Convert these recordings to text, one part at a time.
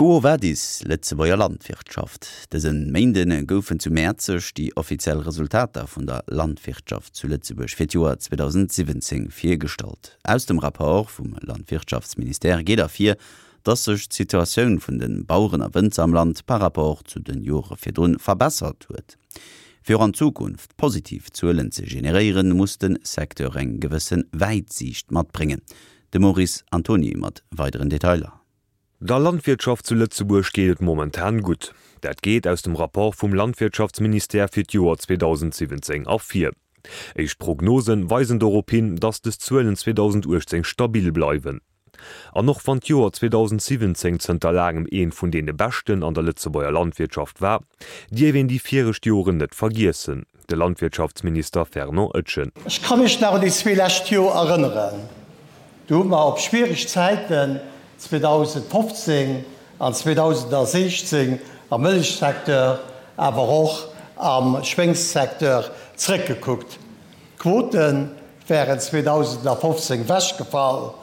Quo vadis, Lëtzebuerger Landwirtschaft? Dëse Méinde goufen zu Mäerzeg déi offiziell Resultater vun der Landwirtschaft zu Lëtzebuerg fir d'Joer 2017 virgestallt. Aus dem Rapport vum Landwirtschaftsministère geet ervir, dass sech d'Situatioun vun de Baueren a Wënzer am Land par Rapport zu de Jore virdrun verbessert huet. Fir och an Zukunft positiv Zuelen ze generéieren, muss de Secteur eng gewësse Wäitsiicht matbréngen. De Maurice Antoni mat weideren Detailer. Der Landwirtschaft zu Lëtzebuerg geet et momentan gutt. Dat geet aus dem Rapport vum Landwirtschaftsministère fir d'Joer 2017 ervir. Éischt Prognose weisen dorop hin, datt des Zuelen 2018 stabil bleiwen. An och wann d'Joer 2017 zënter laangem eent vun deene beschten an der Lëtzebuerger Landwirtschaft war, dierf een déi viregt Joren net vergiessen. De Landwirtschaftsminister Fernand Etgen. Ech ka mech nach un déi zwee lescht Joer erënneren. Do hu mer op schwiereg Zäiten 2015 an 2016 am Mëllechsecteur, awer och am Schwéngssecteur zrëckgekuckt. D'Quote wären 2015 wechgefall,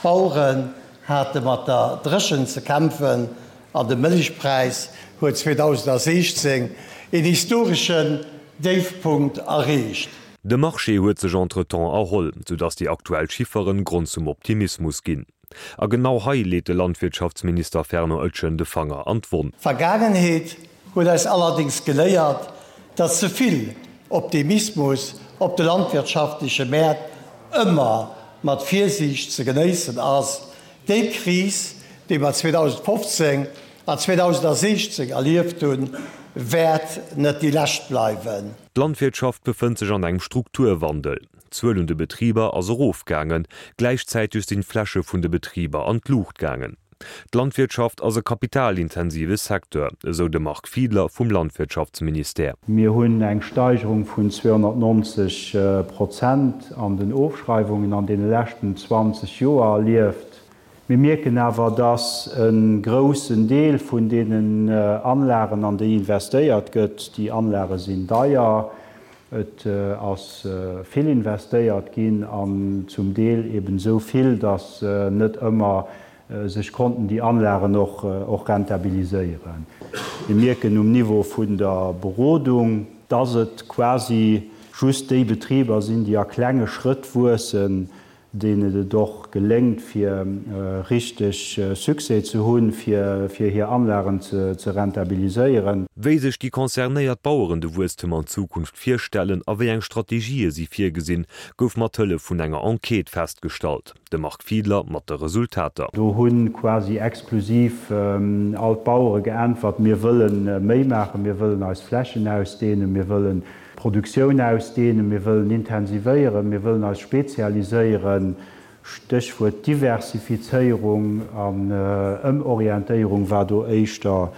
d'Baueren hate mat der Dréchent ze kämpfen an de Mëllechpräis huet 2016 een historeschen Déifpunkt erreecht. De Marché huet sech entretemps erholl, soudass déi aktuell Chifferen Grond zum Optimismus ginn. A genau hei leet de Landwirtschaftsminister Fernand Etgen de Fanger an d'Wonn. D'Vergaangenheet huet eis allerdéngs geléiert, datt ze vill Optimismus op de landwirtschaftleche Mäert ëmmer mat Virsiicht ze genéissen ass. Déi Kris, déi mer 2015 an 2016 erlieft hunn, wäert net déi lescht bleiwen. D'Landwirtschaft befënnt sech an engem Strukturwandel. D'Zuel un de Betriber ass erofgaangen, gläichzäiteg sinn d'Fläche vun de Betriber an d'Luucht gaangen. D'Landwirtschaft ass e kapitalintensive Secteur, esou de Marc Fiedler vum Landwirtschaftsministère. Mir hunn eng Steigerung vun 290 Prozent an den Ofschreiwungen an deene leschten 20 Joer erlieft. Mir mierken awer, dass e groussen Deel vun deenen Anlagen, an déi investéiert gëtt, déi Anlage sinn deier, et ass vill investéiert ginn an zum Deel eben esou vill, dass net ëmmer sech konnten déi Anlagen och rentabiliséieren. Mir mierken um Niveau vun der Berodung, dass et quasi just déi Betriber sinn, déi a klenge Schrëtt wuessen, deenen et och geléngt fir richteg Succès ze hunn, fir hir Anlagen ze rentabiliséieren. Wéi sech déi concernéiert Baueren de Wuesstem an Zukunft virstellen a wéi eng Strategië si virgesinn, gouf mat Hëllef vun enger Enquête festgestallt. De Marc Fiedler mat de Resultater. Do hu quasi exklusiv all d'Bauere geäntwert, Mir wëlle méi maachen, mir wëllen eis Flächen ausdehnen, mir wëllen d'Produktioun ausdehnen, mir wëllen intensivéieren, mir wëllen eis spezialiséieren. Stéchwuert Diversifizéierung an Ëmorientéierung war do éischter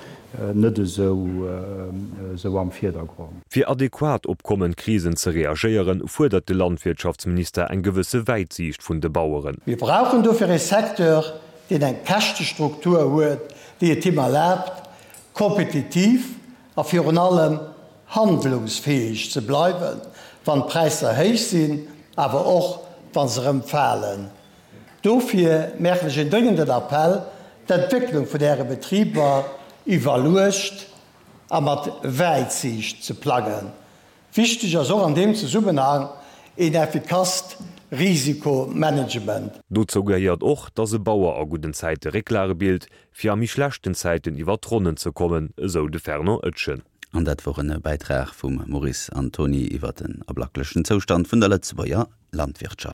net esou am Virdergrond. Fir adequat op kommend Krisen ze reagéieren, fuerdert de Landwirtschaftsminister eng gewësse Wäitsiicht vun de Baueren. Mir brauchen dofir ee Secteur, deen eng Käschtestruktur huet, déi et him erlaabt, kompetitiv a virun allem handlungsfäeg ze bleiwen, wann d'Präisser héich sinn, awer och wa se erëm falen. Dofir maachen ech een dréngenden Appell, d'Entwécklung vun Äre Betriber iwwerluecht a mat Wäitsiicht ze plangen. Wichteg ass och an deem Zesummenhang een effikasst Risikomanagement. Dozou gehéiert och, dass e Bauer a gudden Zäite Récklage bilt, fir a méi schlechten Zäiten iwwer d'Ronnen ze kommen, esou de Fernand Etgen. An dat wor en Bäitrag vum Maurice Antoni iwwer den ablacklechen Zoustand vun der Lëtzebuerger Landwirtschaft.